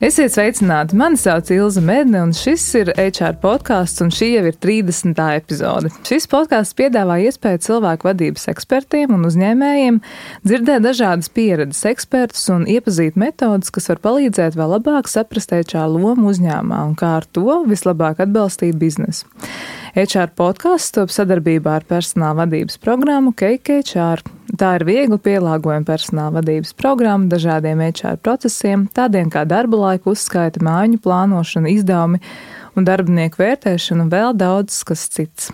Esiet sveicināti! Mani sauc Ilze Medne, un šis ir HR podcasts, un šī jau ir 30. epizode. Šis podcasts piedāvā iespēju cilvēku vadības ekspertiem un uzņēmējiem dzirdēt dažādas pieredzes ekspertus un iepazīt metodas, kas var palīdzēt vēl labāk saprast HR lomu uzņēmumā un kā ar to vislabāk atbalstīt biznesu. HR podcasts top sadarbībā ar personāla vadības programmu Cake HR. Tā ir viegli pielāgojama personāla vadības programma dažādiem HR procesiem, tādiem kā darba laika uzskaita, mājiņu plānošana, izdevumi un darbinieku vērtēšana un vēl daudz kas cits.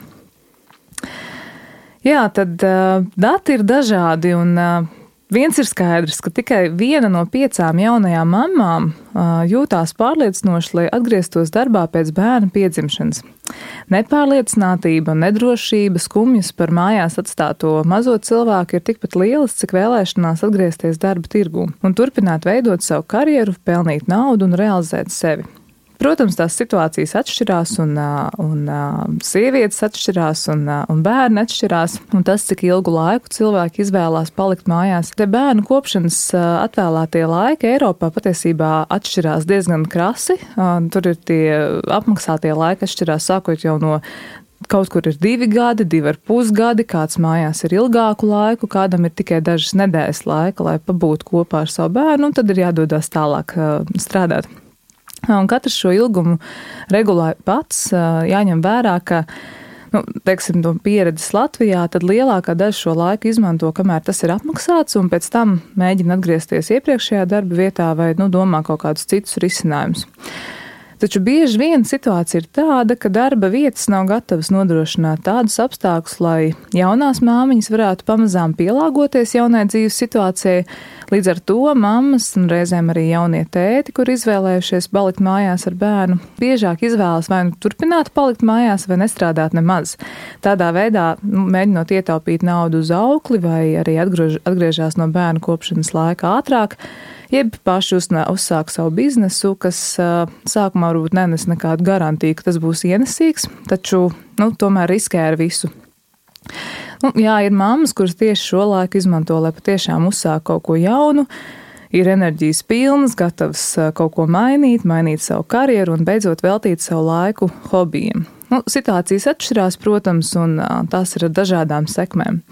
Jā, tad dati ir dažādi un viens ir skaidrs, ka tikai 1 no 5 jaunajām mammām jūtās pārliecinoši, lai atgrieztos darbā pēc bērna piedzimšanas. Nepārliecinātība, nedrošība, skumjas par mājās atstāto mazo cilvēku ir tikpat lielas, cik vēlēšanās atgriezties darba tirgū un turpināt veidot savu karjeru, pelnīt naudu un realizēt sevi. Protams, tās situācijas atšķirās un sievietes atšķirās un bērni atšķirās, un tas, cik ilgu laiku cilvēki izvēlās palikt mājās. Te bērnu kopšanas atvēlētie laiki Eiropā patiesībā atšķirās diezgan krasi. Tur ir tie apmaksātie laiki atšķirās sākot jau no kaut kur ir 2 gadi, 2,5 gadi, kāds mājās ir ilgāku laiku, kādam ir tikai dažas nedēļas laika, lai pabūtu kopā ar savu bērnu, un tad ir jādodas tālāk strādāt. Un katrs šo ilgumu regulē pats, jāņem vērā, ka, teiksim, no pieredzes Latvijā, tad lielākā daļa šo laiku izmanto, kamēr tas ir apmaksāts, un pēc tam mēģina atgriezties iepriekšējā darba vietā vai, domā kaut kādus citus risinājumus. Taču bieži vien situācija ir tāda, ka darba vietas nav gatavas nodrošināt tādus apstākļus, lai jaunās māmiņas varētu pamazām pielāgoties jaunai dzīves situācijai. Līdz ar to mammas un reizēm arī jaunie tēti, kur izvēlējušies palikt mājās ar bērnu, biežāk izvēlas vai nu turpināt palikt mājās vai nestrādāt nemaz. Tādā veidā mēģinot ietaupīt naudu uz aukli vai arī atgriežās no bērnu kopšanas laika ātrāk, jeb paši uzsāk savu biznesu, kas sākumā varbūt nenes nekādu garantiju, ka tas būs ienesīgs, taču tomēr riskē ar visu. Jā, ir mammas, kuras tieši šo laiku izmanto, lai patiešām uzsāk kaut ko jaunu, ir enerģijas pilnas, gatavas kaut ko mainīt savu karjeru un beidzot veltīt savu laiku hobijiem. Situācijas atšķirās, protams, un tās ir ar dažādām sekmēm.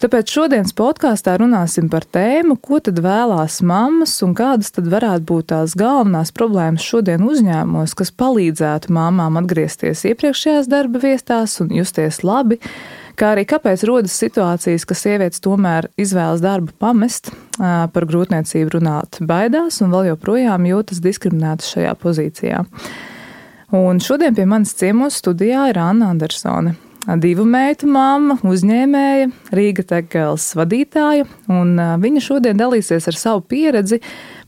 Tāpēc šodienas podkāstā runāsim par tēmu, ko tad vēlās mammas un kādas tad varētu būt tās galvenās problēmas šodien uzņēmumos, kas palīdzētu māmām atgriezties iepriekšējās darba vietās un justies labi, kā arī kāpēc rodas situācijas, ka sievietes tomēr izvēlas darbu pamest, par grūtniecību runāt baidās un vēl joprojām jūtas diskriminētas šajā pozīcijā. Un šodien pie manis ciemos studijā ir Anna Andersone. 2 meitu mamma, uzņēmēja, Rīga Tekels vadītāja, un viņa šodien dalīsies ar savu pieredzi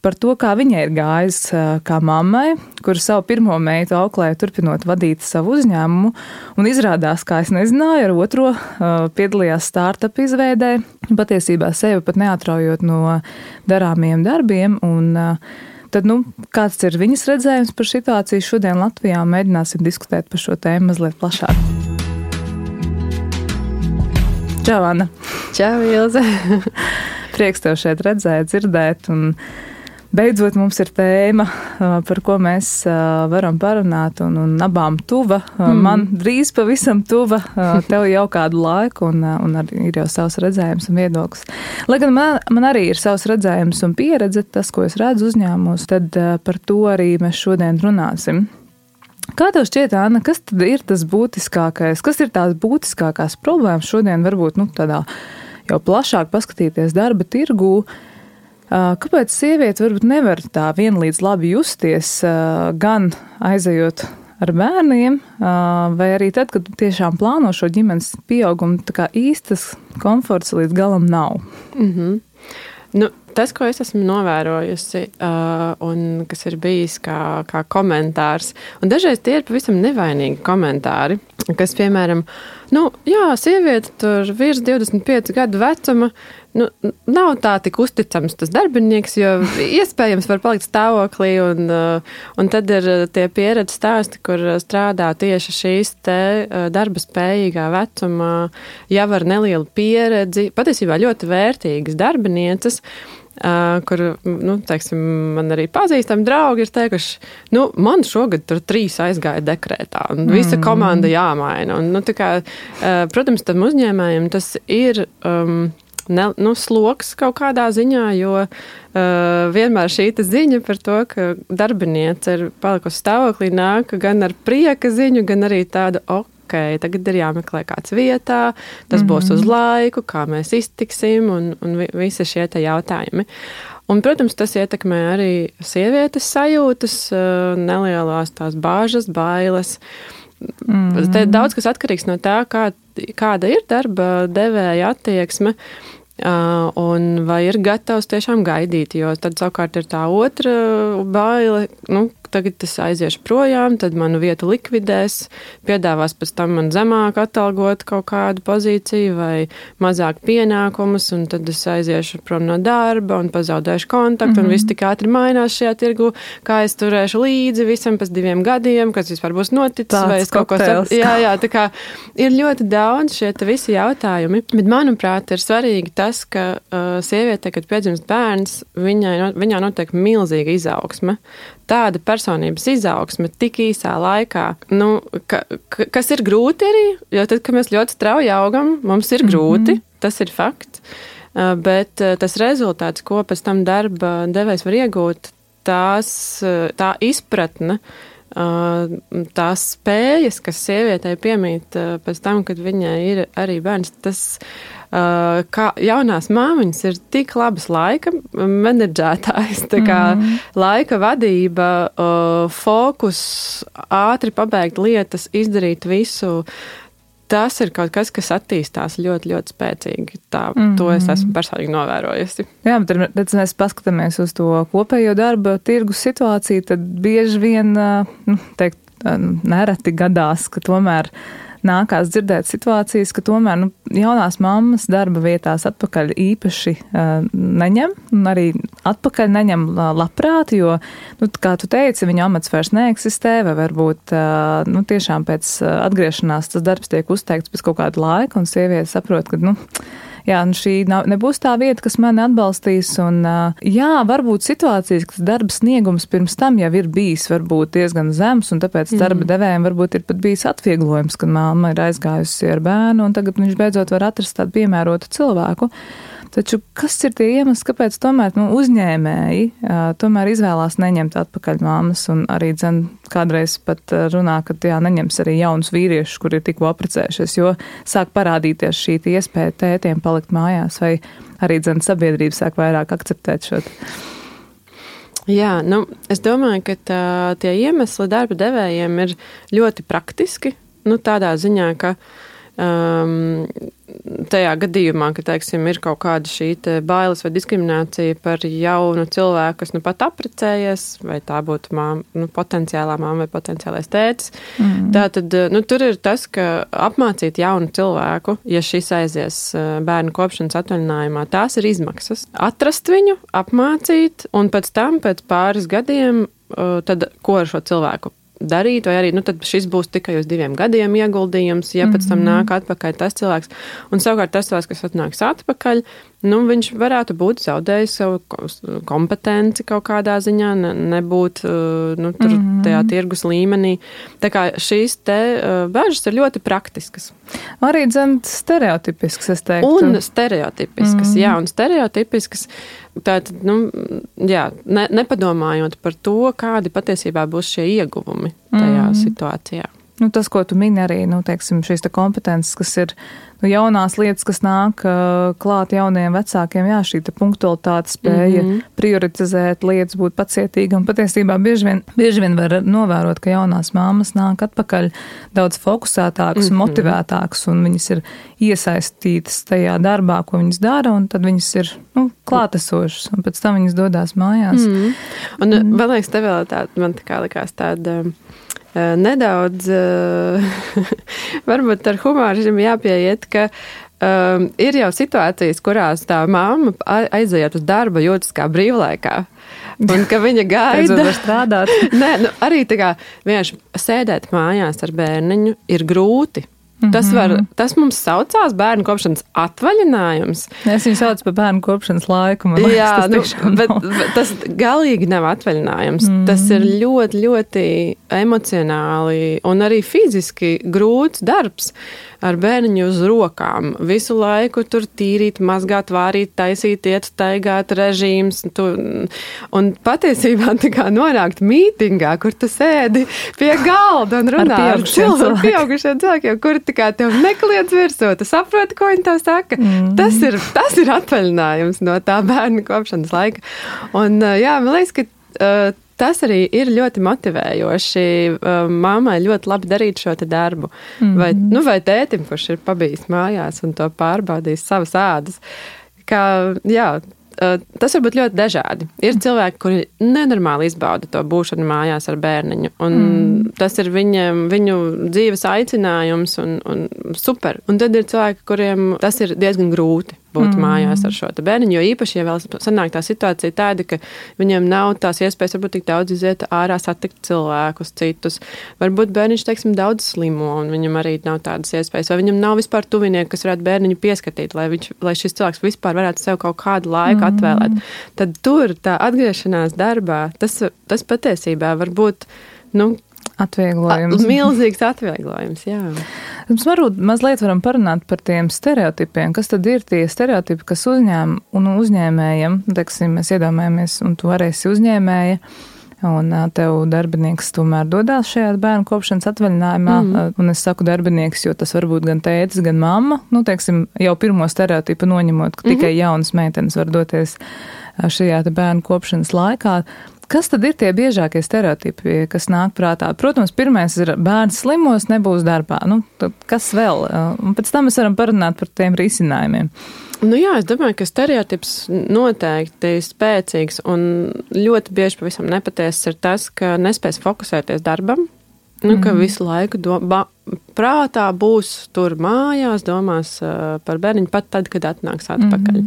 par to, kā viņai ir gājis kā mammai, kura savu pirmo meitu auklēja turpinot vadīt savu uzņēmumu, un izrādās, kā es nezināju, ar otro piedalījās startup izveidē, patiesībā sevi pat neatraujot no darāmiem darbiem, un tad, kāds ir viņas redzējums par situāciju šodien Latvijā, mēģināsim diskutēt par šo tēmu mazliet plašāk. Čau, Anna! Čau, Ilze! Prieks tev šeit redzēt, dzirdēt, un beidzot mums ir tēma, par ko mēs varam parunāt, un abām tuva. Man drīz pavisam tuva, tev jau kādu laiku, un arī ir jau savs redzējums un viedoklis. Lai gan man arī ir savs redzējums un pieredze, tas, ko es redzu uzņēmumos, tad par to arī mēs šodien runāsim. Kā tev šķiet, Anna, kas tad ir tas būtiskākais, kas ir tās būtiskākās problēmas šodien varbūt tādā jau plašāk paskatīties darba tirgū? Kāpēc sieviete varbūt nevar tā vienlīdz labi justies gan aizejot ar bērniem, vai arī tad, kad tiešām plāno šo ģimenes pieaugumu, tā kā īstas komforts līdz galam nav? Tas, ko es esmu novērojusi, un kas ir bijis kā komentārs, un dažreiz tie ir pavisam nevainīgi komentāri, kas, piemēram, sieviete tur virs 25 gadu vecuma, nav tā tik uzticams tas darbinieks, jo iespējams var palikt stāvoklī, un tad ir tie pieredzes stāsti, kur strādā tieši šīs te darba spējīgā vecuma, jau ar nelielu pieredzi, patiesībā ļoti vērtīgas darbinieces, kur, teiksim, man arī pazīstami draugi ir teikuši, man šogad tur 3 aizgāja dekrētā, un visa komanda jāmaina. Un, protams, tam uzņēmējiem tas ir sloks kaut kādā ziņā, jo vienmēr šī ziņa par to, ka darbiniece ir palikusi stāvoklī, nāk gan ar prieka ziņu, gan arī tādu tagad ir jāmeklē kāds vietā, tas būs uz laiku, kā mēs iztiksim un visi šie te jautājumi. Un, protams, tas ietekmē arī sievietes sajūtas, nelielās tās bāžas, bailes. Te daudz kas atkarīgs no tā, kāda ir darba devēja attieksme. Un vai ir gatavs tiešām gaidīt, jo tad savukārt ir tā otra baile, tagad es aiziešu projām, tad manu vietu likvidēs, piedāvās pēc tam man zemāk atalgot kaut kādu pozīciju vai mazāk pienākumus, un tad es aiziešu prom no darba un pazaudēšu kontaktu, un viss tik ātri mainās šajā tirgu, kā es turēšu līdzi visam pēc 2 gadiem, kas vispār būs noticis, tāds vai es kaut ko Jā, tā kā ir ļoti daudz šie visi jautājumi, bet manuprāt ir svarīgi tas, ka sieviete, kad piedzimst bērns, viņā notiek milzīga izaugsme. Tāda personības izaugsme tik īsā laikā, kas ir grūti arī, jo tad, kad mēs ļoti strauji augam, mums ir grūti, tas ir fakts, bet tas rezultāts, ko pēc tam darba devējs var iegūt, tā izpratne, tās spējas, kas sievietei piemīt pēc tam, kad viņai ir arī bērns, tas kā jaunās māmiņas ir tik labas laika menedžētājs, tā kā laika vadība, fokus, ātri pabeigt lietas, izdarīt visu. Tas ir kaut kas attīstās ļoti, ļoti spēcīgi. To es esmu personīgi novērojusi. Jā, bet redz, mēs paskatāmies uz to kopējo darba tirgus situāciju, tad bieži vien, nereti gadās, ka tomēr nākās dzirdēt situācijas, ka tomēr jaunās mammas darba vietās atpakaļ īpaši neņem, un arī atpakaļ neņem labprāt, jo, kā tu teici, viņa amats vairs neeksistē, vai varbūt tiešām pēc atgriešanās tas darbs tiek uzteikts pēc kaut kāda laika, un sieviete saprot, ka, šī nebūs tā vieta, kas mani atbalstīs, un varbūt situācijas, ka darba sniegums pirms tam jau ir bijis varbūt diezgan zems, un tāpēc darba devējiem varbūt ir pat bijis atvieglojums, kad mamma ir aizgājusi ar bērnu, un tagad viņš beidzot var atrast tādu piemērotu cilvēku. Taču kas ir tie iemesli, kāpēc tomēr uzņēmēji tomēr izvēlās neņemt atpakaļ mammas, un arī kādreiz pat runā, ka neņems arī jaunus vīriešus, kuri ir tikko apprecējušies, jo sāk parādīties šī iespēja tētiem palikt mājās, vai arī sabiedrība sāk vairāk akceptēt šo. Jā, es domāju, ka tie iemesli darba devējiem ir ļoti praktiski, tādā ziņā, ka tajā gadījumā, ka, teiksim, ir kaut kāda šī bailes vai diskriminācija par jaunu cilvēku, kas pat apprecējies, vai tā būtu potenciālā māma vai potenciālais tētis. Tātad, tur ir tas, ka apmācīt jaunu cilvēku, ja šis aizies bērnu kopšanas atvaļinājumā, tās ir izmaksas. Atrast viņu, apmācīt, un pēc tam, pēc pāris gadiem, tad ko ar šo cilvēku darīt, vai arī, tad šis būs tikai uz 2 gadiem ieguldījums, ja pēc tam nāk atpakaļ tas cilvēks. Un savukārt tas cilvēks, kas atnāks atpakaļ, viņš varētu būt zaudējis savu kompetenci kaut kādā ziņā, nebūt tur tajā tirgus līmenī. Tā kā šīs te bažas ir ļoti praktiskas. Arī stereotipiskas, es teiktu. Un stereotipiskas, un stereotipiskas. Tātad, nepadomājot par to, kādi patiesībā būs šie ieguvumi tajā situācijā. Tas, ko tu mini arī, teiksim, šīs kompetences, kas ir jaunās lietas, kas nāk klāt jaunajiem vecākiem, šī punktualitāte spēja prioritizēt lietas, būt pacietīga, un patiesībā bieži vien var novērot, ka jaunās māmas nāk atpakaļ daudz fokusētākas, motivētākas, un viņas ir iesaistītas tajā darbā, ko viņas dara, un tad viņas ir klātesošas, un pēc tam viņas dodās mājās. Un vēl liekas, tev vēl man tā kā likās tāda nedaudz, varbūt ar humoru jāpieiet, ka ir jau situācijas, kurās tā mamma aiziet uz darba jūtas kā brīvlaikā. Un ka viņa gaida strādāt. Nē, arī tā kā vienkārši sēdēt mājās ar bērniņu ir grūti. Tas mums saucās bērnu kopšanas atvaļinājums. Es viņu saucu par bērnu kopšanas laiku. Jā, bet tas galīgi nav atvaļinājums. Tas ir ļoti, ļoti emocionāli un arī fiziski grūts darbs ar bērniņu uz rokām. Visu laiku tur tīrīt, mazgāt, vārīt, taisīt, iet, staigāt, režīms. Un patiesībā tā kā nonākt mītingā, kur tu sēdi pie galda un runā ar pieaugušiem cilvēkiem, kuri tā kā tev nekliedz virsū, tu saproti, ko viņi tev saka. Tas ir atvaļinājums no tā bērnu kopšanas laika. Un jā, man liekas, ka tas arī ir ļoti motivējoši mammai ļoti labi darīt šo te darbu. Vai tētim, kurš ir pabijis mājās un to pārbaudījis savas ādas. Tas var būt ļoti dažādi. Ir cilvēki, kuri nenormāli izbauda to būšanu mājās ar bērniņu. Un tas ir viņu dzīves aicinājums un super. Un tad ir cilvēki, kuriem tas ir diezgan grūti būt mājās ar šo te bērniņu, jo īpaši, ja vēl sanāk tā situācija tāda, ka viņiem nav tās iespējas varbūt tik daudz iziet ārā, satikt cilvēkus, citus. Varbūt bērniņš, teiksim, daudz slimo, un viņam arī nav tādas iespējas. Vai viņam nav vispār tuvinieki, kas varētu bērniņu pieskatīt, lai šis cilvēks vispār varētu sev kaut kādu laiku atvēlēt. Tad tur tā atgriešanās darbā, tas patiesībā var būt, atvieglojums. Milzīgs atvieglojums, jā. Mums varbūt mazliet varam parunāt par tiem stereotipiem. Kas tad ir tie stereotipi, kas uzņēmējiem, teiksim, mēs iedomājamies, un tu arī esi uzņēmēja, un tev darbinieks tomēr dodās šajā bērnu kopšanas atvaļinājumā, un es saku darbinieks, jo tas var būt gan tētis, gan mamma, teiksim, jau pirmo stereotipu noņemot, ka tikai jaunas meitenes var doties šajā te bērnu kopšanas laikā. Kas tad ir tie biežākie stereotipi, kas nāk prātā? Protams, pirmais ir bērns slimos, nebūs darbā. Kas vēl? Un pēc tam mēs varam parunāt par tiem risinājumiem. Jā, es domāju, ka stereotips noteikti spēcīgs un ļoti bieži pavisam nepatiesas ir tas, ka nespēs fokusēties darbam, ka visu laiku prātā būs tur mājās, domās par bērniņu pat tad, kad atnāks atpakaļ.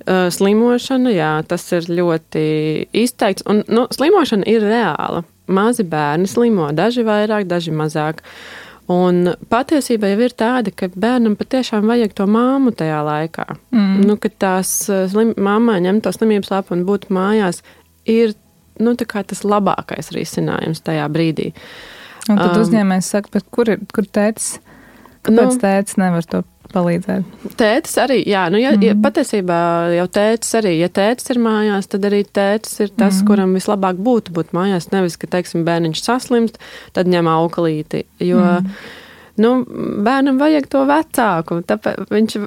Slimošana, jā, tas ir ļoti izteikts, un slimošana ir reāla. Mazi bērni slimo, daži vairāk, daži mazāk. Un patiesībā jau ir tāda, ka bērnam patiešām vajag to māmu tajā laikā. Kad tās mammai ņem to slimības lapu un būt mājās, ir tā kā tas labākais risinājums tajā brīdī. Un tad uzņēmējs saka, bet kur tētis? Kāpēc tētis nevar to palīdzēt? Tētis arī, jā, patiesībā jau tētis arī, ja tētis ir mājās, tad arī tētis ir tas, kuram vislabāk būtu būt mājās, nevis, ka, teiksim, bērniņš saslimst, tad ņem auklīti, jo bērnam vajag to vecāku,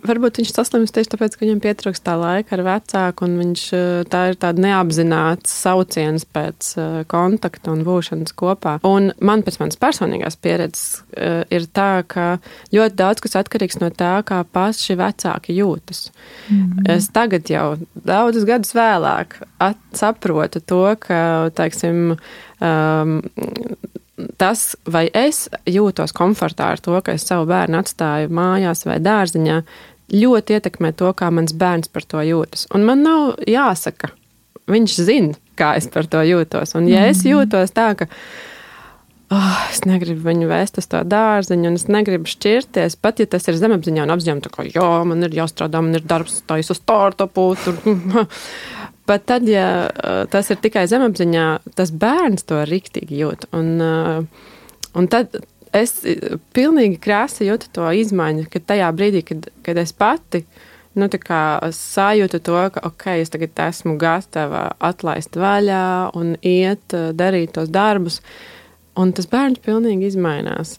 varbūt viņš saslimst tieši tāpēc, ka viņam pietrūkst tā laika ar vecāku, un tā ir tāda neapzināts sauciens pēc kontakta un būšanas kopā. Un man pēc manas personīgās pieredzes ir tā, ka ļoti daudz kas atkarīgs no tā, kā paši vecāki jūtas. Es tagad jau daudzus gadus vēlāk saprotu to, ka, teiksim, tas, vai es jūtos komfortā ar to, ka es savu bērnu atstāju mājās vai dārziņā, ļoti ietekmē to, kā mans bērns par to jūtas. Un man nav jāsaka, viņš zina, kā es par to jūtos. Un ja es jūtos tā, ka es negribu viņu vēst uz to dārziņu, un es negribu šķirties, pat ja tas ir zemapziņā un apziņā, tā kā, man ir jāstrādā, man ir darbs, taisa startupu, tur. Bet tad, ja tas ir tikai zemapziņā, tas bērns to riktīgi jūt. Un tad es pilnīgi krāsi jūtu to izmaiņu, ka tajā brīdī, kad es pati sajūtu to, ka es tagad esmu gatava atlaist vaļā un iet darīt tos darbus, un tas bērns pilnīgi izmainās.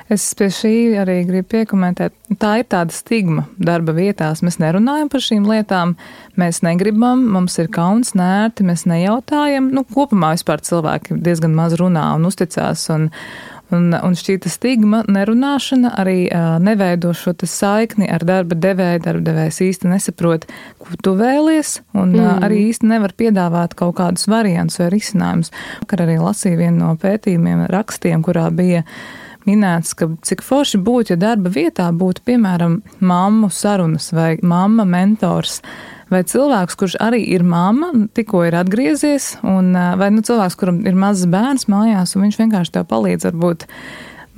Es pie šī arī gribu piekomentēt. Tā ir tāda stigma darba vietās. Mēs nerunājam par šīm lietām, mēs negribam, mums ir kauns, nērti, mēs nejautājam. Kopumā vispār cilvēki diezgan maz runā un uzticās, un šī stigma nerunāšana arī neveido šo saikni ar darba devēju. Darba devējs īsti nesaprot, ko tu vēlies, un arī īsti nevar piedāvāt kaut kādus variantus vai risinājumus. Vakar arī lasīju vienu no pētījumiem, rakstiem, kurā bija minēts, ka cik forši būtu, ja darba vietā būtu, piemēram, mammu sarunas vai mamma mentors vai cilvēks, kurš arī ir mamma, tikko ir atgriezies, vai cilvēks, kuram ir mazs bērns mājās, un viņš vienkārši tev palīdz varbūt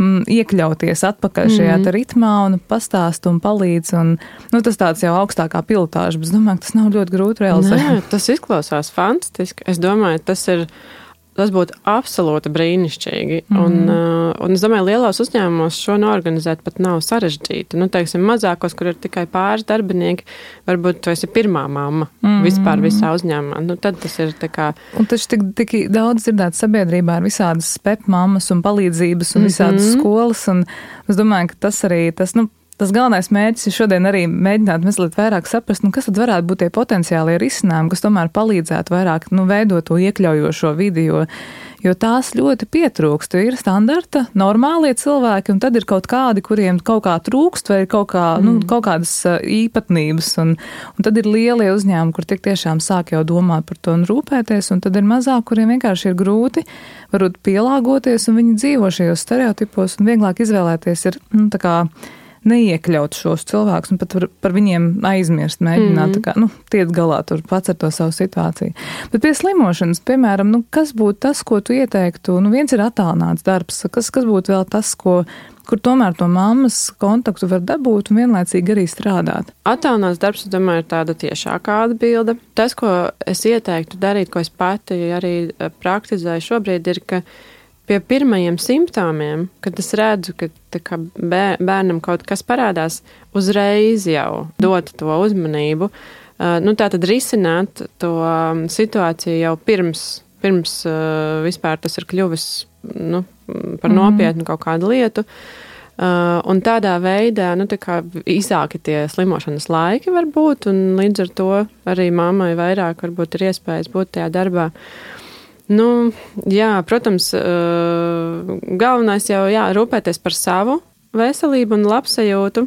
iekļauties atpakaļ šajā ritmā un pastāst un palīdz. Un, tas tāds jau augstākā pilotāža, bet es domāju, ka tas nav ļoti grūti realizēt. Nē, tas izklausās fantastiski. Es domāju, tas būtu absolūti brīnišķīgi. Un es domāju, lielos uzņēmumos šo noorganizēt pat nav sarežģīti. Teiksim, mazākos, kur ir tikai pāris darbinieki, varbūt tu esi pirmā mamma vispār visā uzņēmumā. Tad tas ir tā kā... Un taču tik daudz dzirdēt sabiedrībā ir visādas mammas un palīdzības un visādas skolas. Un es domāju, ka tas galvenais mērķis ir šodien arī mēģināt mazliet vairāk saprast, kas tad varētu būt tie potenciālie risinājumi, kas tomēr palīdzētu vairāk veidot to iekļaujošo vidi, jo tās ļoti pietrūkst. Ir standarta, normālie cilvēki, un tad ir kaut kādi, kuriem kaut kā trūkst, vai ir kaut kādas īpatnības, un tad ir lielie uzņēmumi, kur tik tiešām sāk jau domāt par to un rūpēties, un tad ir mazāk, kuriem vienkārši ir grūti varbūt pielāgoties, un viņi dzīvo šajos stereotipos, un vieglāk izvēlēties ir, tā kā neiekļaut šos cilvēkus un pat par viņiem aizmirst, mēģināt tiet galā tur pats ar to savu situāciju. Bet pie slimošanas, piemēram, kas būtu tas, ko tu ieteiktu? Viens ir attālināts darbs, kas būtu vēl tas, kur tomēr to mammas kontaktu var dabūt un vienlaicīgi arī strādāt? Attālināts darbs, es domāju, ir tāda tiešākā atbilde. Tas, ko es ieteiktu darīt, ko es pati arī praktizēju šobrīd, ir, ka pie pirmajiem simptomiem, kad es redzu, ka bērnam kaut kas parādās, uzreiz jau dot to uzmanību, tātad risināt to situāciju jau pirms vispār tas ir kļuvis par nopietnu kaut kādu lietu. Un tādā veidā, īsāki tie slimošanas laiki var būt, un līdz ar to arī mammai vairāk varbūt ir iespējas būt tajā darbā. Protams, galvenais jau rūpēties par savu veselību un labsajūtu,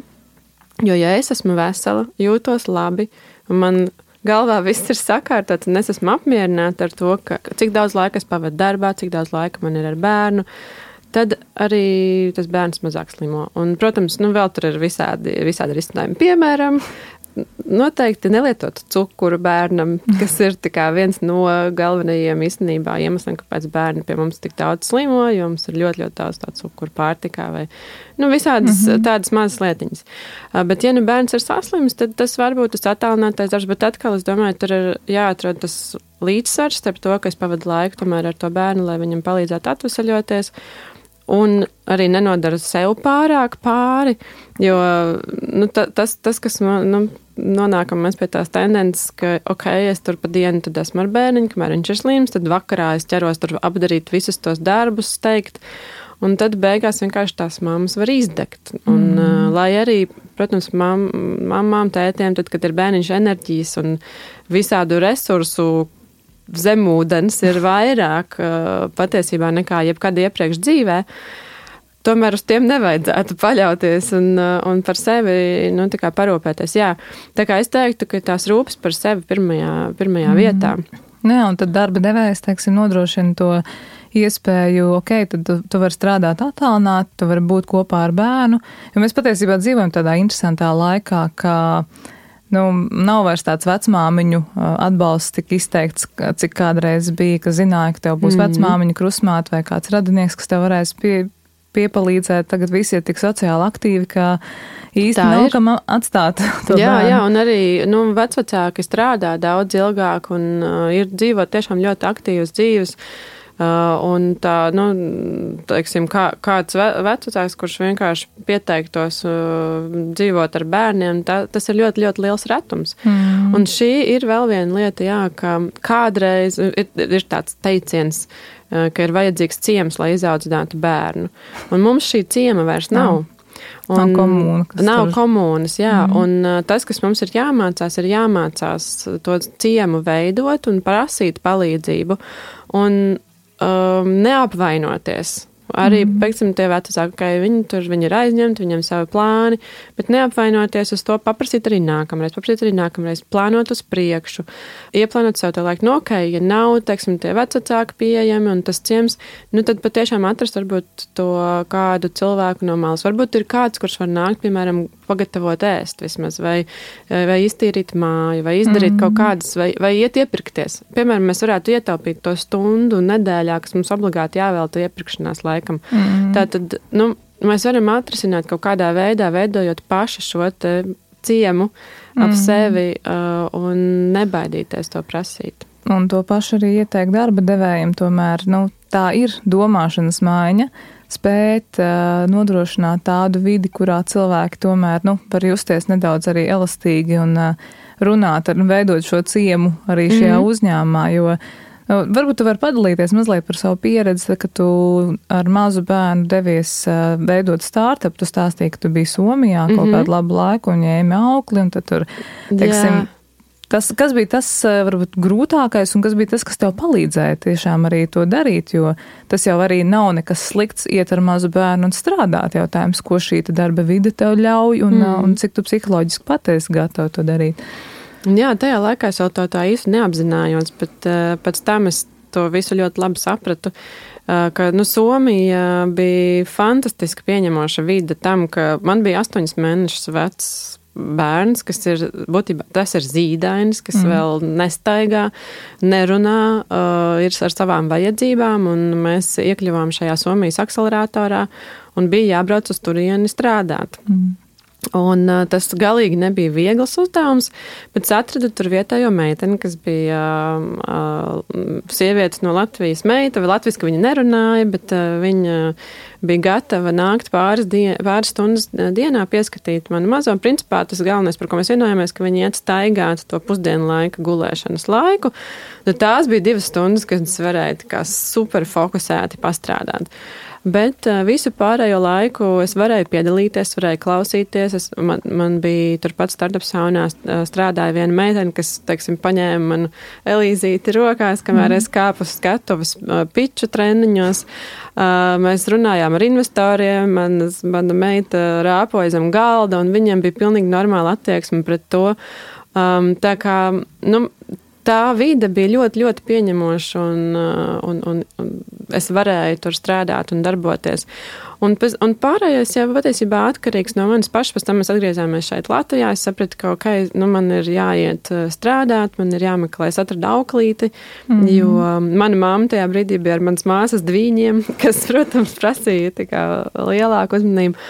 jo, ja es esmu vesela, jūtos labi, un man galvā viss ir sakārtots, un es esmu apmierināta ar to, cik daudz laika es pavadu darbā, cik daudz laika man ir ar bērnu, tad arī tas bērns mazāk slimo. Un, protams, vēl tur ir visādi risinājumi. Piemēram, noteikti nelietot cukuru bērnam, kas ir viens no galvenajiem īstenībā iemesliem, kāpēc bērni pie mums tik daudz slimo, jo mums ir ļoti, ļoti daudz tādu cukuru pārtikā vai visādas tādas mazas lietiņas. Bet, ja bērns ir saslims, tad tas varbūt tas attālinātais darbs, bet atkal, es domāju, tur ir jāatrod tas līdzsvars starp to, ka es pavadu laiku tomēr ar to bērnu, lai viņam palīdzētu atvesaļoties, un arī nenodara sev pārāk pāri, jo tas kas nonākam mēs pie tās tendences, ka, es tur pa dienu tad esmu ar bērniņu, kamēr viņš ir slims, tad vakarā es ķeros tur apdarīt visus tos darbus, steigt, un tad beigās vienkārši tās mammas var izdegt. Un, lai arī, protams, mammām, tētiem, tad, kad ir bērniņš enerģijas un visādu resursu zemūdens ir vairāk patiesībā nekā jebkad iepriekš dzīvē, tomēr uz tiem nevajadzētu paļauties un par sevi tā kā parūpēties. Jā, tā kā es teiktu, ka tās rūpes par sevi pirmajā vietā. Jā, un tad darba devējs, nodrošina to iespēju, tad tu vari strādāt attālināt, tu vari būt kopā ar bērnu, jo mēs patiesībā dzīvojam tādā interesantā laikā, ka nav vairs tāds vecmāmiņu atbalsts tik izteikts, cik kādreiz bija, ka zināja, ka tev būs vecmāmiņa krusmāte vai kāds radinieks, kas tev varēs piepalīdzēt. Tagad visi ir tik sociāli aktīvi, ka īsti nav kam atstāt to bērnu. Jā, un arī vecvecāki strādā daudz ilgāk un ir dzīvot tiešām ļoti aktīvas dzīves. Un tā, teiksim, kāds vecvecāks, kurš vienkārši pieteiktos dzīvot ar bērniem, tas ir ļoti, ļoti liels retums. Un šī ir vēl viena lieta, ka kādreiz ir tāds teiciens, ka ir vajadzīgs ciems, lai izaudzinātu bērnu. Un mums šī ciema vairs nav. Nav komunas, jā. Un tas, kas mums ir jāmācās to ciemu veidot un prasīt palīdzību. Un neapvainoties. Arī, pieksim, tie vecāki, viņi ir aizņemti, viņiem savi plāni, bet neapvainoties uz to, paprasīt arī nākamreiz, plānot uz priekšu, ieplānot sev to laiku, ja nav, teiksim, tie vecāki pieejami un tas ciems, tad patiešām atrast varbūt to kādu cilvēku no malas. Varbūt ir kāds, kurš var nākt, piemēram, pagatavot ēst vismaz, vai iztīrīt māju, vai izdarīt kaut kādas, vai iet iepirkties. Piemēram, mēs varētu ietaupīt to stundu nedēļā, kas mums obligāti jāvelta iepirkšanās laikam. Tātad, mēs varam atrisināt kaut kādā veidā, veidojot paši šo te ciemu ap sevi un nebaidīties to prasīt. Un to pašu arī ieteikt darba devējiem, tomēr, tā ir domāšanas maiņa, spēt nodrošināt tādu vidi, kurā cilvēki tomēr, var justies nedaudz arī elastīgi un runāt, veidot šo ciemu arī šajā uzņēmumā, jo varbūt tu vari padalīties mazliet par savu pieredzi, ka tu ar mazu bērnu devies veidot startup, tu stāstīji, ka tu biji Somijā kaut kādu labu laiku un ņēmi aukli, un tad tur, teiksim, kas bija tas, varbūt, grūtākais un kas bija tas, kas tev palīdzēja tiešām arī to darīt, jo tas jau arī nav nekas slikts iet ar mazu bērnu un strādāt. Jautājums, ko šī darba vide tev ļauj un cik tu psiholoģiski patiesi gatavi to darīt. Jā, tajā laikā es jau to tā īsti neapzinājos, bet pēc tam es to visu ļoti labi sapratu, ka Somija bija fantastiski pieņemoša vide tam, ka man bija 8 mēnešus vecs bērns, kas ir, būtībā, tas ir zīdainis, kas vēl nestaigā, nerunā, ir ar savām vajadzībām, un mēs iekļuvām šajā Somijas akceleratorā, un bija jābrauc uz turieni strādāt. Un tas galīgi nebija viegls uzdevums, bet es atradu tur vietējo meiteni, kas bija sievietes no Latvijas meita, vai latviski viņa nerunāja, bet viņa bija gatava nākt pāris stundas dienā pieskatīt manu mazo. Principā tas galvenais, par ko mēs vienojāmies, ka viņi iet staigāt to pusdienu laika gulēšanas laiku. Tad tās bija 2 stundas, kad es varēju kā super fokusēti pastrādāt. Bet visu pārējo laiku es varēju piedalīties, varēju klausīties. Man bija turpat startup saunā strādāja viena meitene, kas, teiksim, paņēma manu Elīzīti rokās, kamēr es kāpu uz skatuves piču treniņos. Mēs runājām ar investoriem, mana meita rāpoja zem galda, un viņiem bija pilnīgi normāla attieksme pret to. Tā kā, tā vide bija ļoti, ļoti pieņemoša, un es varēju tur strādāt un darboties. Un pārējais jau patiesībā atkarīgs no manis pašas. Pēc tam mēs atgriezāmies šeit Latvijā. Es sapratu, ka man ir jāiet strādāt, man ir jāmeklē, es atradu auklīti, jo mana mamma tajā brīdī bija ar manas māsas dvīņiem, kas, protams, prasīja tā kā lielāku uzmanību.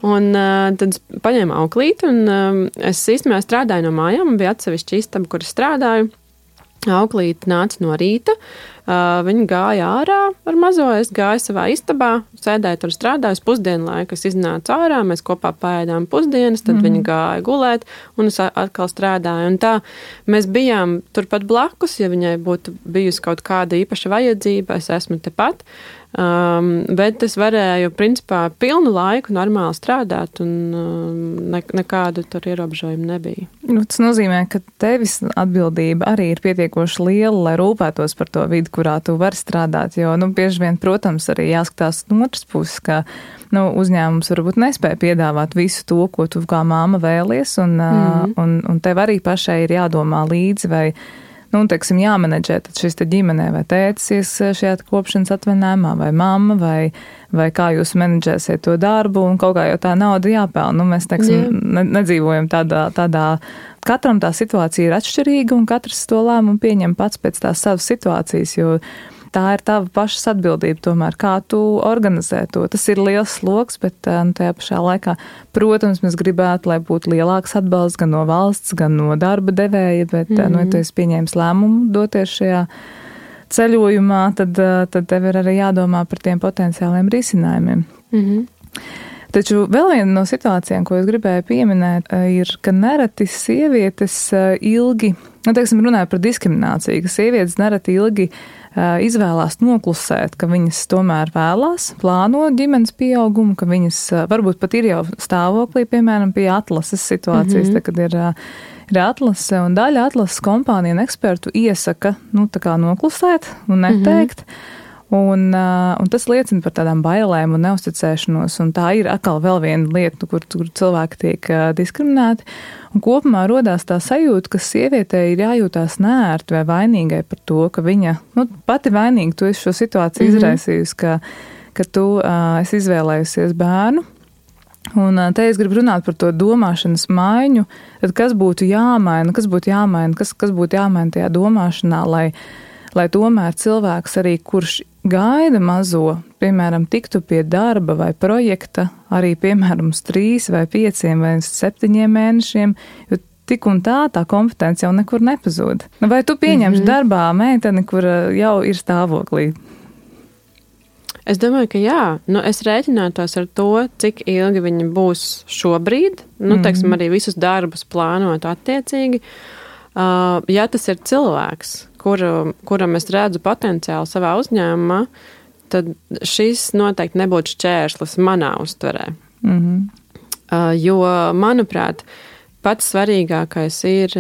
Un tad es paņēmu auklīti, un es īstenībā strādāju no mājām, un bija atsevišķa istaba, kur es strādāju. Auklīte nāca no rīta, viņa gāja ārā ar mazo, es gāju savā istabā, sēdēju tur strādāju, pusdienu laiku es iznācu ārā, mēs kopā paēdām pusdienas, tad viņa gāja gulēt, un es atkal strādāju. Un tā mēs bijām turpat blakus, ja viņai būtu bijusi kaut kāda īpaša vajadzība, es esmu tepat. Bet es varēju, principā, pilnu laiku normāli strādāt, un nekādu tur ierobežojumu nebija. Tas nozīmē, ka tevis atbildība arī ir pietiekoši liela, lai rūpētos par to vidi, kurā tu vari strādāt, jo, bieži vien, protams, arī jāskatās no otras puses, ka, uzņēmums varbūt nespēja piedāvāt visu to, ko tu kā māma vēlies, un tev arī pašai ir jādomā līdzi, vai teiksim, jāmenedžē tad šis te ģimenē, vai tētis ies šajā kopšanas atvaļinājumā, vai mamma, vai kā jūs menedžēsiet to darbu, un kaut kā jau tā nauda jāpelna. Mēs, teiksim, nedzīvojam tādā, katram tā situācija ir atšķirīga, un katrs to lēmumu pieņem pats pēc tās savas situācijas, jo tā ir tava pašas atbildība tomēr, kā tu organizē to. Tas ir liels sloks, bet tajā pašā laikā, protams, mēs gribētu, lai būtu lielāks atbalsts gan no valsts, gan no darba devēja, bet, ja tu esi pieņēmis lēmumu doties šajā ceļojumā, tad tev ir arī jādomā par tiem potenciāliem risinājumiem. Taču vēl viena no situācijām, ko es gribēju pieminēt, ir, ka nereti sievietes ilgi, teiksim, runāja par diskrimināciju, ka sievietes nereti ilgi izvēlās noklusēt, ka viņas tomēr vēlās, plāno ģimenes pieaugumu, ka viņas varbūt pat ir jau stāvoklī, piemēram, pie atlases situācijas, kad ir atlase, un daļa atlases kompāniju un ekspertu iesaka, tā kā noklusēt un neteikt. Un tas liecina par tādām bailēm un neusticēšanos, un tā ir atkal vēl viena lieta, kur cilvēki tiek diskriminēti. Un kopumā rodās tā sajūta, ka sievietei ir jājūtās neērti vai vainīgai par to, ka viņa, pati vainīga, tu esi šo situāciju izraisījusi, ka tu esi izvēlējusies bērnu. Un te es gribu runāt par to domāšanas maiņu, tad kas būtu jāmaina, kas būtu jāmaina tajā domāšanā, lai tomēr cilvēks arī, kurš gaida mazo, piemēram, tiktu pie darba vai projekta arī, piemēram, uz 3 vai 5 vai 7 mēnešiem, jo tik un tā kompetence jau nekur nepazūd. Vai tu pieņemsi darbā meiteni, kura jau ir stāvoklī? Es domāju, ka jā. Es rēķinātos ar to, cik ilgi viņi būs šobrīd. Teiksim, arī visus darbus plānot attiecīgi. Ja tas ir cilvēks, kuram es redzu potenciālu savā uzņēmumā, tad šis noteikti nebūtu šķērslis manā uztverē. Jo, manuprāt, pats svarīgākais ir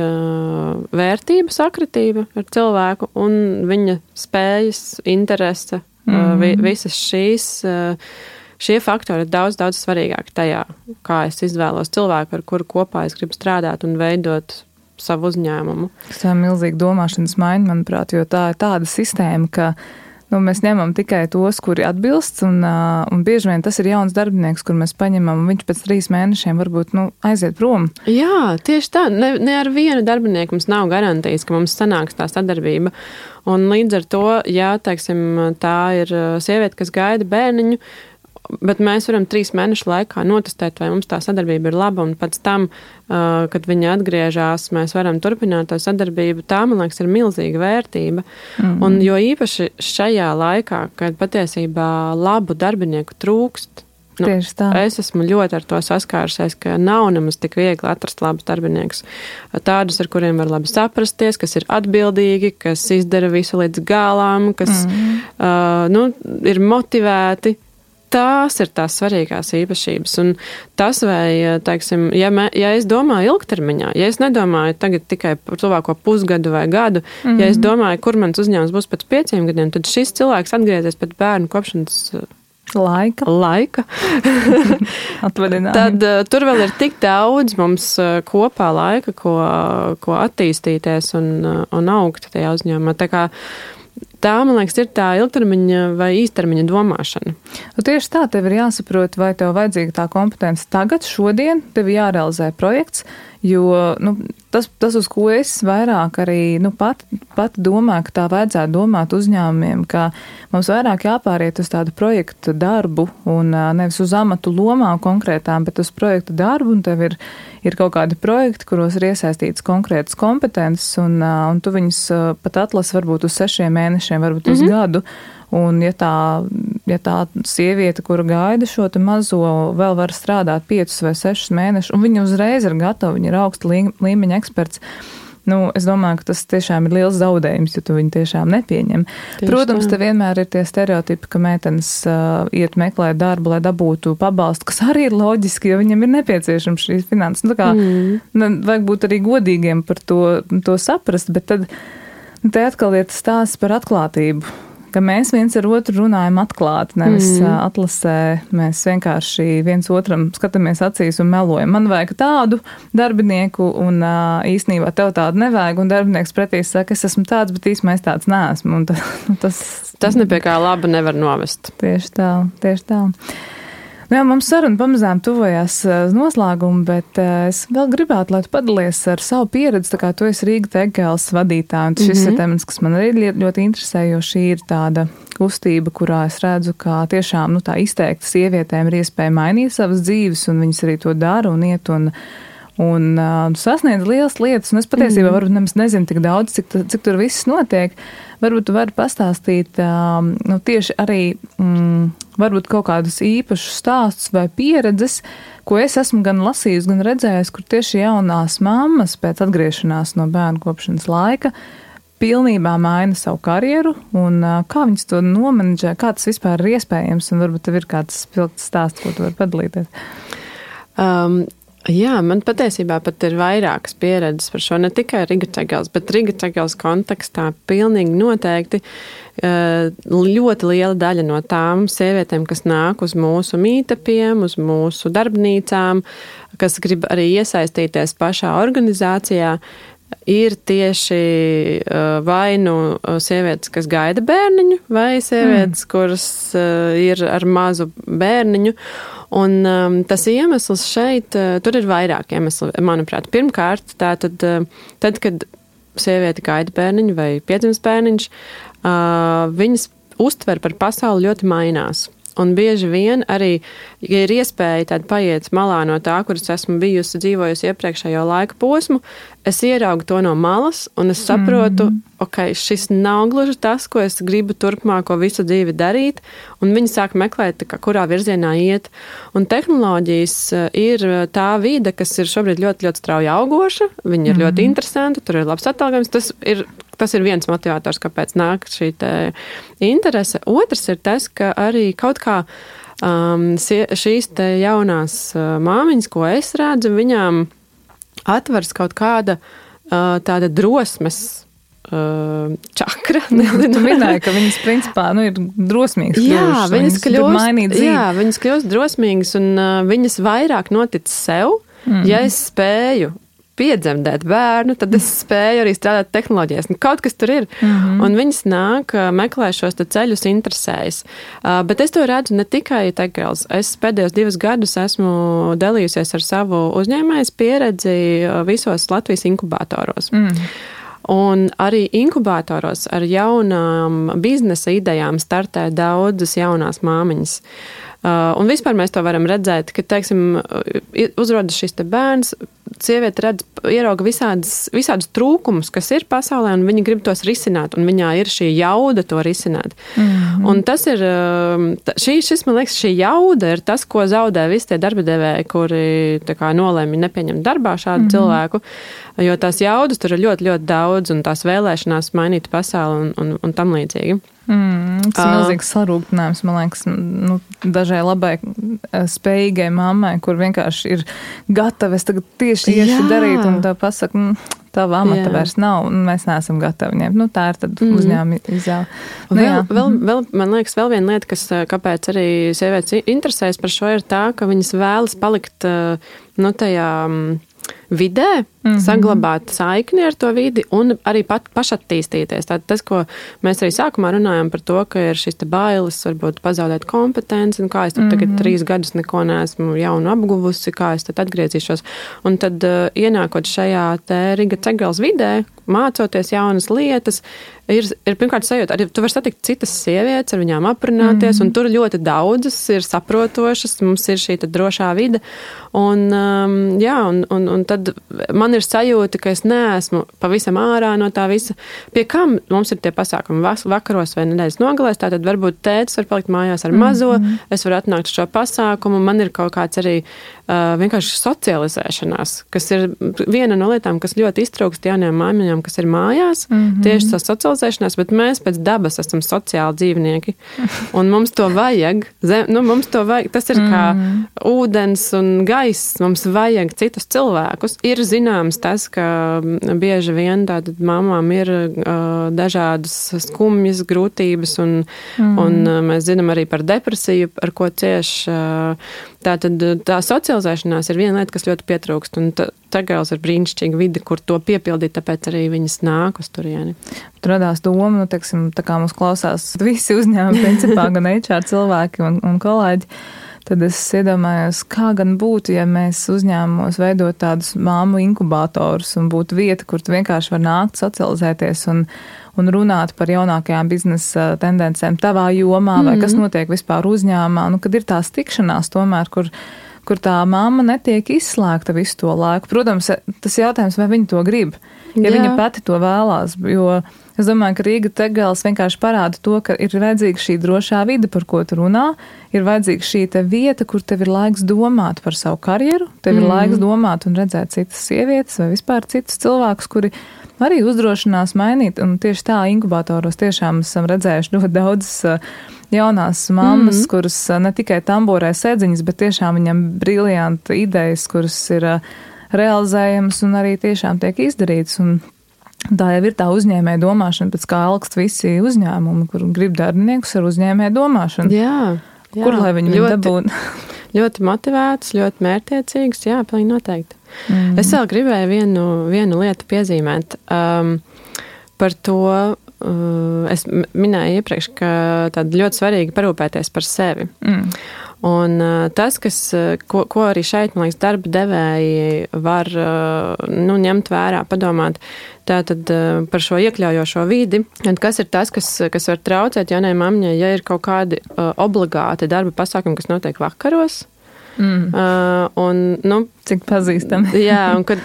vērtība sakritība ar cilvēku un viņa spējas, interese. Visas šie faktori ir daudz, daudz svarīgāki tajā, kā es izvēlos cilvēku, ar kuru kopā es gribu strādāt un veidot savu uzņēmumu. Tas ir milzīgi domāšanas maiņa, manuprāt, jo tā ir tāda sistēma, ka mēs ņemam tikai tos, kuri atbilst, un bieži vien tas ir jauns darbinieks, kur mēs paņemam, un viņš pēc 3 mēnešiem varbūt aiziet prom. Jā, tieši tā. Ne ar vienu darbinieku mums nav garantijas, ka mums sanāks tā sadarbība. Un līdz ar to, ja, teiksim, tā ir sieviete, kas gaida bērniņu, bet mēs varam 3 mēnešu laikā notestēt, vai mums tā sadarbība ir laba, un pēc tam, kad viņa atgriežas, mēs varam turpināt to sadarbību. Tā, man liekas, ir milzīga vērtība. Un jo īpaši šajā laikā, kad patiesībā labu darbinieku trūkst, es esmu ļoti ar to saskārusies, ka nav nemaz tik viegli atrast labus darbiniekus. Tādus, ar kuriem var labi saprasties, kas ir atbildīgi, kas izdara visu līdz galām, kas ir motivēti. Tās ir tās svarīgās īpašības. Un tas, vai, teiksim, ja es domāju ilgtermiņā, ja es nedomāju tagad tikai par tuvāko pusgadu vai gadu, ja es domāju, kur mans uzņēmums būs pēc 5 gadiem, tad šis cilvēks atgriezies pēc bērnu kopšanas laika. Tad tur vēl ir tik daudz mums kopā laika, ko attīstīties un augt tajā uzņēmumā. Tā, man liekas, ir tā ilgtermiņa vai īstermiņa domāšana. Tieši tā, tev ir jāsaprot, vai tev vajadzīga tā kompetence tagad, šodien, tev jārealizē projekts, jo tas, uz ko es vairāk arī pat domāju, ka tā vajadzētu domāt uzņēmumiem, ka mums vairāk jāpāriet uz tādu projektu darbu un nevis uz amatu lomām konkrētām, bet uz projektu darbu, un tev ir kaut kādi projekti, kuros ir iesaistīts konkrētas kompetences, un tu viņus pat atlasi varbūt uz 6 mēnešiem, varbūt uz gadu. Un ja tā sieviete, kura gaida šo te mazo, vēl var strādāt 5 vai 6 mēnešus, un viņa uzreiz ir gatava, viņa ir augsta līmeņa eksperts, es domāju, ka tas tiešām ir liels zaudējums, ja tu viņu tiešām nepieņem. Protams, te vienmēr ir tie stereotipi, ka meitenes iet meklēt darbu, lai dabūtu pabalstu, kas arī ir loģiski, jo viņam ir nepieciešams šīs finanses. Vajag būt arī godīgiem par to saprast, bet tad te atkal ir tas stāsts par atklātību. Ka mēs viens ar otru runājam atklāti, nevis atlasē, mēs vienkārši viens otram skatāmies acīs un melojam. Man vajag tādu darbinieku, un īstenībā tev tādu nevajag, un darbinieks pretī saka, es esmu tāds, bet īstenībā es tāds neesmu. Un tas nepie kā laba nevar novest. Tieši tā. Jā, mums saruna pamazām tuvojās noslēgumu, bet es vēl gribētu, lai tu padalies ar savu pieredzi, tā kā tu esi Rīga Tegels vadītāja, un šis ir temats, kas man arī ļoti interesē, jo šī ir tāda kustība, kurā es redzu, ka tiešām tā izteikti sievietēm ir iespēja mainīt savas dzīves, un viņas arī to dara un iet un sasniedz lielas lietas, un es patiesībā varbūt nemaz nezinu tik daudz, cik tur viss notiek. Varbūt tu vari pastāstīt tieši arī varbūt kaut kādus īpašus stāstus vai pieredzes, ko es esmu gan lasījusi, gan redzējusi, kur tieši jaunās mammas pēc atgriešanās no bērnu kopšanas laika pilnībā maina savu karjeru, un kā viņas to nomenedžē, kā tas vispār ir iespējams, un varbūt tev ir kāds spilgts stāsts, ko tu vari padalīties. Jā, man patiesībā pat ir vairākas pieredzes par šo, ne tikai Rīga Tegels, bet Rīga Tegels kontekstā pilnīgi noteikti ļoti liela daļa no tām sievietēm, kas nāk uz mūsu mītapiem, uz mūsu darbnīcām, kas grib arī iesaistīties pašā organizācijā, ir tieši vai sievietes, kas gaida bērniņu, vai sievietes, kuras ir ar mazu bērniņu. Un tas iemesls šeit, tur ir vairāk iemesli, manuprāt. Pirmkārt, tad, kad sieviete gaida bērniņu vai piedzimst bērniņš, viņas uztver par pasauli ļoti mainās. Un bieži vien arī, ja ir iespēja tāda paiet malā no tā, kuras esmu bijusi dzīvojusi iepriekšējo laika posmu, es ieraugu to no malas un es saprotu, ok, šis nav gluži tas, ko es gribu turpmāko visu dzīvi darīt, un viņi sāk meklēt, kurā virzienā iet. Un tehnoloģijas ir tā vide, kas ir šobrīd ļoti, ļoti strauji augoša, viņi ir ļoti interesanti, tur ir labs atalgojums, tas ir viens motivators, kāpēc nāk šī interese. Otrs ir tas, ka arī kaut kā šīs te jaunās māmiņas, ko es redzu, viņām atvers kaut kāda tāda drosmes čakra. Tu minēji, ka viņas principā ir drosmīgas. Viņas kļūst drosmīgas un viņas vairāk notic sev, ja es spēju piedzemdēt bērnu, tad es spēju arī strādāt tehnoloģijās. Kaut kas tur ir. Un viņas nāk, meklē šos ceļus, interesējas. Bet es to redzu ne tikai Tech-Girls. Es pēdējos 2 gadus esmu dalījusies ar savu uzņēmējas pieredzi visos Latvijas inkubatoros. Un arī inkubatoros ar jaunām biznesa idejām startē daudzas jaunās māmiņas. Un vispār mēs to varam redzēt, ka, teiksim, uzrodas šis te bērns, sieviete ierauga visādus trūkumus, kas ir pasaulē, un viņa grib tos risināt, un viņā ir šī jauda to risināt. Un tas ir, šis, man liekas, šī jauda ir tas, ko zaudē visi tie darbadevēji, kuri nolēma nepieņemt darbā šādu cilvēku, jo tās jaudas tur ir ļoti, ļoti daudz, un tās vēlēšanās mainīt pasauli un tam līdzīgi. Tas ir milzīgs sarūktinājums, man liekas, dažai labai spējīgai mammai, kur vienkārši ir gatava, es tagad tieši iešu darīt, un tā pasaka, tava amata vairs nav, un mēs neesam gatavi ņemt. Tā ir tad uzņēmuma izvēle. Vēl, man liekas, vēl viena lieta, kāpēc arī sievietes interesēs par šo, ir tā, ka viņas vēlas palikt, tajā vidē, saglabāt saikni ar to vidi un arī pašattīstīties. Tātad tas, ko mēs arī sākumā runājam par to, ka ir šis te bailes, varbūt pazaudēt kompetenci, un kā es tur tagad 3 gadus neko neesmu jaunu apguvusi, kā es tad atgriezīšos. Un tad ienākot šajā te Riga Tech-Girls vidē, mācoties jaunas lietas, ir pirmkārt sajūta, arī tu vari satikt citas sievietes, ar viņām aprunāties, un tur ļoti daudzas ir saprotošas, mums ir šī drošā vide, un tad man ir sajūta, ka es neesmu pavisam ārā no tā visa. Pie kam mums ir tie pasākumi vakaros vai nedēļas nogalēs, tātad varbūt tētis var palikt mājās ar mazo, es varu atnākt uz šo pasākumu, man ir kaut kāds arī vienkārši socializēšanās, kas ir viena no lietām, kas ļoti iztrūkst jaunajām māmiņām, kas ir mājās, tieši tā socializēšanās, bet mēs pēc dabas esam sociāli dzīvnieki, un mums to vajag, tas ir kā ūdens un gaiss, mums vajag citus cilvēkus. Ir zināms tas, ka bieži vien tātad mamām ir dažādas skumjas, grūtības, un mēs zinām arī par depresiju, ar ko cieš. Tātad tā socializēšanās ir viena lieta, kas ļoti pietrūkst, un Tech-Girls ir brīnišķīga vide, kur to piepildīt, tāpēc arī viņas nāk uz turieni. Tur radās doma, teiksim, tā kā mums klausās visi uzņēmumi, principā, gan HR cilvēki un kolēģi, tad es iedomājos, kā gan būtu, ja mēs uzņēmumos veidot tādus māmu inkubatorus un būtu vieta, kur tu vienkārši var nākt, socializēties un runāt par jaunākajām biznesa tendencēm tavā jomā vai kas notiek vispār uzņēmumā, kad ir tās tikšanās tomēr, kur tā mamma netiek izslēgta visu to laiku. Protams, tas jautājums, vai viņa to grib, ja viņa pati to vēlās, jo es domāju, ka Riga Tech-Girls vienkārši parāda to, ka ir vajadzīga šī drošā vide, par ko tu runā, ir vajadzīga šī te vieta, kur tev ir laiks domāt par savu karjeru, tev ir laiks domāt un redzēt citas sievietes vai vispār citus cilvēkus, kuri arī uzdrošinās mainīt, un tieši tā inkubatoros tiešām esam redzējuši ļoti daudzas jaunās mammas, kuras ne tikai tamborē sēdziņas, bet tiešām viņam briljanti idejas, kuras ir realizējamas un arī tiešām tiek izdarītas, un tā jau ir tā uzņēmēja domāšana, pēc kā alkst visi uzņēmumi, kur grib darbiniekus ar uzņēmēja domāšanu. Jā. Kur lai viņi dabūtu? Ļoti motivēts, ļoti mērķtiecīgs, jā, pilnīgi noteikti. Es vēl gribēju vienu lietu piezīmēt par to, es minēju iepriekš, ka tad ļoti svarīgi parūpēties par sevi. Un tas, ko arī šeit, man liekas, darba devēji var ņemt vērā, padomāt tātad par šo iekļaujošo vidi, kas ir tas, kas var traucēt jaunai mamņai, ja ir kaut kādi obligāti darba pasākumi, kas notiek vakaros. Cik pazīstami. Jā, un kad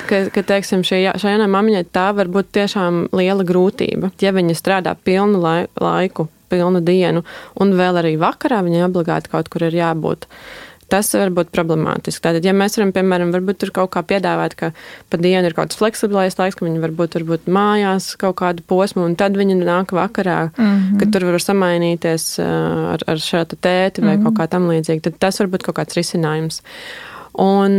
teiksim, šai jaunai mamņai tā var būt tiešām liela grūtība, ja viņa strādā pilnu laiku, pilnu dienu, un vēl arī vakarā viņai obligāti kaut kur ir jābūt. Tas var būt problemātiski. Tātad, ja mēs varam, piemēram, varbūt tur kaut kā piedāvāt, ka pa dienu ir kaut kāds fleksiblais laiks, ka viņi varbūt mājās kaut kādu posmu, un tad viņi nāk vakarā, kad tur var samainīties ar šo tēti vai kaut kā tam līdzīgi. Tad tas var būt kaut kāds risinājums. Un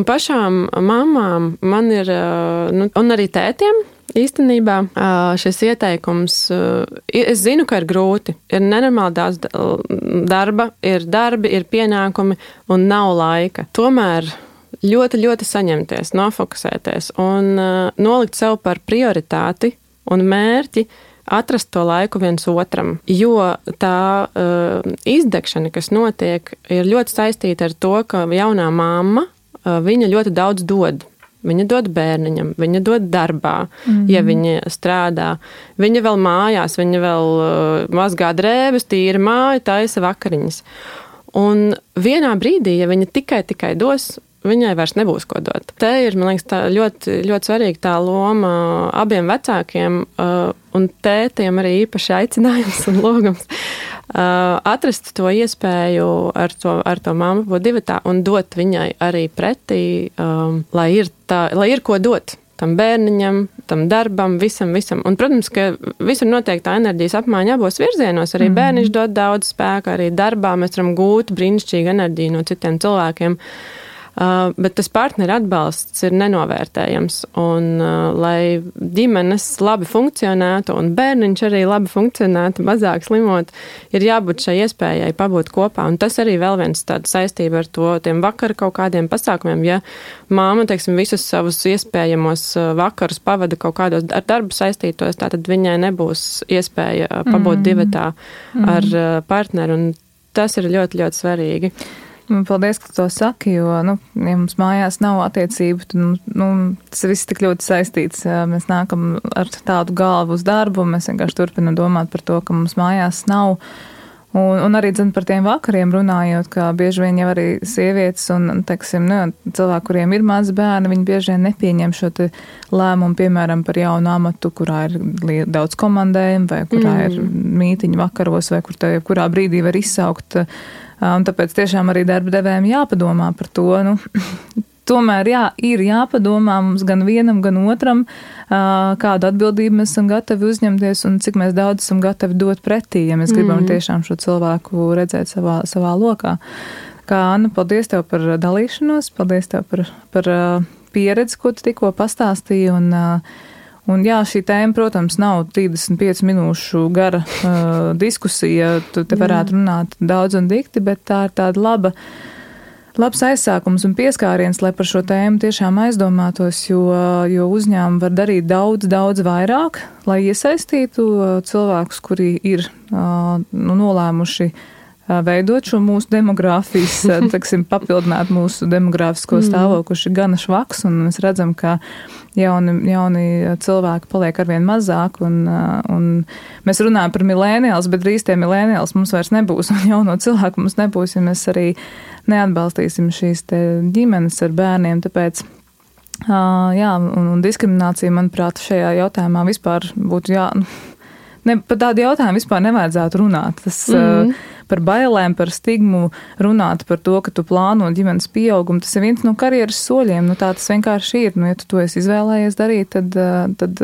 pašām mamām man ir, un arī tētiem, īstenībā šis ieteikums, es zinu, ka ir grūti, ir nenormāli daudz darba, ir darbi, ir pienākumi un nav laika. Tomēr ļoti, ļoti saņemties, nofokusēties un nolikt sev par prioritāti un mērķi atrast to laiku viens otram, jo tā izdegšana, kas notiek, ir ļoti saistīta ar to, ka jaunā mamma, viņa ļoti daudz dod. Viņa dod bērniņam, viņa dod darbā, ja viņa strādā. Viņa vēl mājās, viņa vēl mazgā drēbes, tīra māju, taisa vakariņas. Un vienā brīdī, ja viņa tikai dos, viņai vairs nebūs ko dot. Te ir, man liekas, tā ļoti, ļoti svarīga tā loma abiem vecākiem un tētiem arī īpaši aicinājums un logums. Atrast to iespēju ar to mammu būt divatā un dot viņai arī pretī, lai ir ko dot tam bērniņam, tam darbam, visam. Un, protams, ka visur notiek tā enerģijas apmaiņa abos virzienos. Arī bērniņš dod daudz spēka, arī darbā mēs varam gūt brīnišķīgu enerģiju no citiem cilvēkiem. Bet tas partneru atbalsts ir nenovērtējams, un lai ģimenes labi funkcionētu un bērniņš arī labi funkcionētu, mazāk slimot, ir jābūt šai iespējai pabūt kopā, un tas arī vēl viens tāda saistība ar to tiem vakara kaut kādiem pasākumiem, ja māma, teiksim, visus savus iespējamos vakarus pavada kaut kādos ar darbu saistītos, tātad viņai nebūs iespēja pabūt divatā ar partneru, un tas ir ļoti, ļoti svarīgi. Paldies, ka to saki, jo, ja mums mājās nav attiecību, tad, tas viss tik ļoti saistīts. Mēs nākam ar tādu galvu uz darbu, mēs vienkārši turpinam domāt par to, ka mums mājās nav. Un arī, par tiem vakariem runājot, ka bieži vien jau arī sievietes un, teiksim, cilvēki, kuriem ir mazi bērni, viņi bieži vien nepieņem šo te lēmumu, piemēram, par jaunu amatu, kurā ir daudz komandējumu, vai kurā ir mītiņu vakaros, vai kurā brīdī var izsaukt. Un tāpēc tiešām arī darba devējiem jāpadomā par to. Tomēr ir jāpadomā mums gan vienam, gan otram, kādu atbildību mēs esam gatavi uzņemties un cik mēs daudz esam gatavi dot pretī, ja mēs gribam tiešām šo cilvēku redzēt savā lokā. Kā Anna, paldies tev par dalīšanos, paldies tev par pieredzi, ko tu tikko pastāstīji. Un jā, šī tēma, protams, nav 35 minūšu gara diskusija, tu te varētu runāt daudz un dikti, bet tā ir tāda labs aizsākums un pieskāriens, lai par šo tēmu tiešām aizdomātos, jo uzņēmumi var darīt daudz vairāk, lai iesaistītu cilvēkus, kuri ir nolēmuši veidot šo mūsu demogrāfijas, teiksim, papildināt mūsu demogrāfisko stāvokli, kurš ir gana švaks, un mēs redzam, ka jauni cilvēki paliek arvien mazāk, un mēs runājam par milēniāls, bet drīz tie milēniāls mums vairs nebūs, un jauno cilvēku mums nebūs, ja mēs arī neatbalstīsim šīs te ģimenes ar bērniem, tāpēc, un diskriminācija, manuprāt, šajā jautājumā vispār būtu par tādu jautājumu vispār nevajadzētu runāt. Tas par bailēm, par stigmu runāt par to, ka tu plāno ģimenes pieaugumu, tas ir viens no karjeras soļiem. Tā tas vienkārši ir. Ja tu to esi izvēlējies darīt, tad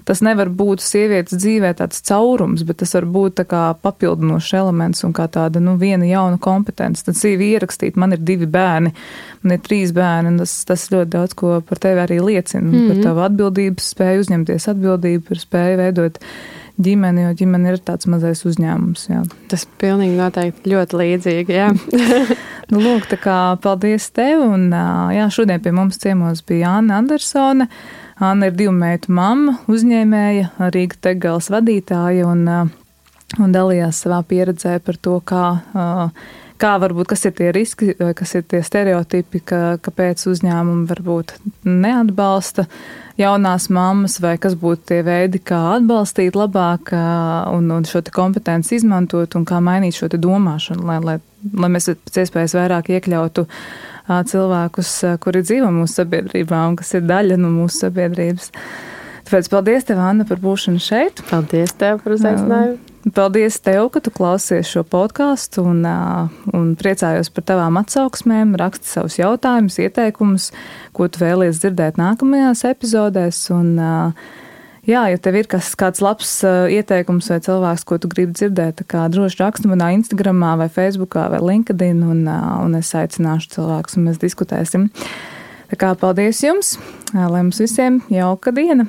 tas nevar būt sievietes dzīvē tāds caurums, bet tas var būt tā kā papildinošs elements un kā tāda, viena jauna kompetence. Tad CV ierakstīt, man ir 2 bērni, man ir 3 bērni, un tas ļoti daudz ko par tevi arī liecina. Par tavu atbildības spēju uzņemties atbildību, par spēju veidot ģimeni, jo ģimene ir tāds mazais uzņēmums. Jā. Tas pilnīgi noteikti ļoti līdzīgi, jā. Lūk, tā kā paldies tev, un šodien pie mums ciemos bija Anna Andersone. Anna ir 2 meitu mamma, uzņēmēja, Rīga Tegals vadītāja, un dalījās savā pieredzē par to, kā varbūt, kas ir tie riski, kas ir tie stereotipi, kāpēc uzņēmumi varbūt neatbalsta jaunās mammas, vai kas būtu tie veidi, kā atbalstīt labāk un šo te kompetenci izmantot un kā mainīt šo te domāšanu, lai mēs pēc iespējas vairāk iekļautu cilvēkus, kuri dzīvo mūsu sabiedrībā un kas ir daļa no mūsu sabiedrības. Tāpēc paldies tev, Anna, par būšanu šeit. Paldies tev par uzaicinājumu. Paldies tev, ka tu klausies šo podkāstu un priecājos par tavām atsauksmēm, raksti savus jautājumus, ieteikumus, ko tu vēlies dzirdēt nākamajās epizodēs. Un, jā, ja tev ir kāds labs ieteikums vai cilvēks, ko tu gribi dzirdēt, tā kā droši raksti manā Instagramā vai Facebookā vai LinkedIn un es aicināšu cilvēkus un mēs diskutēsim. Tā kā paldies jums, lai mums visiem jauka diena!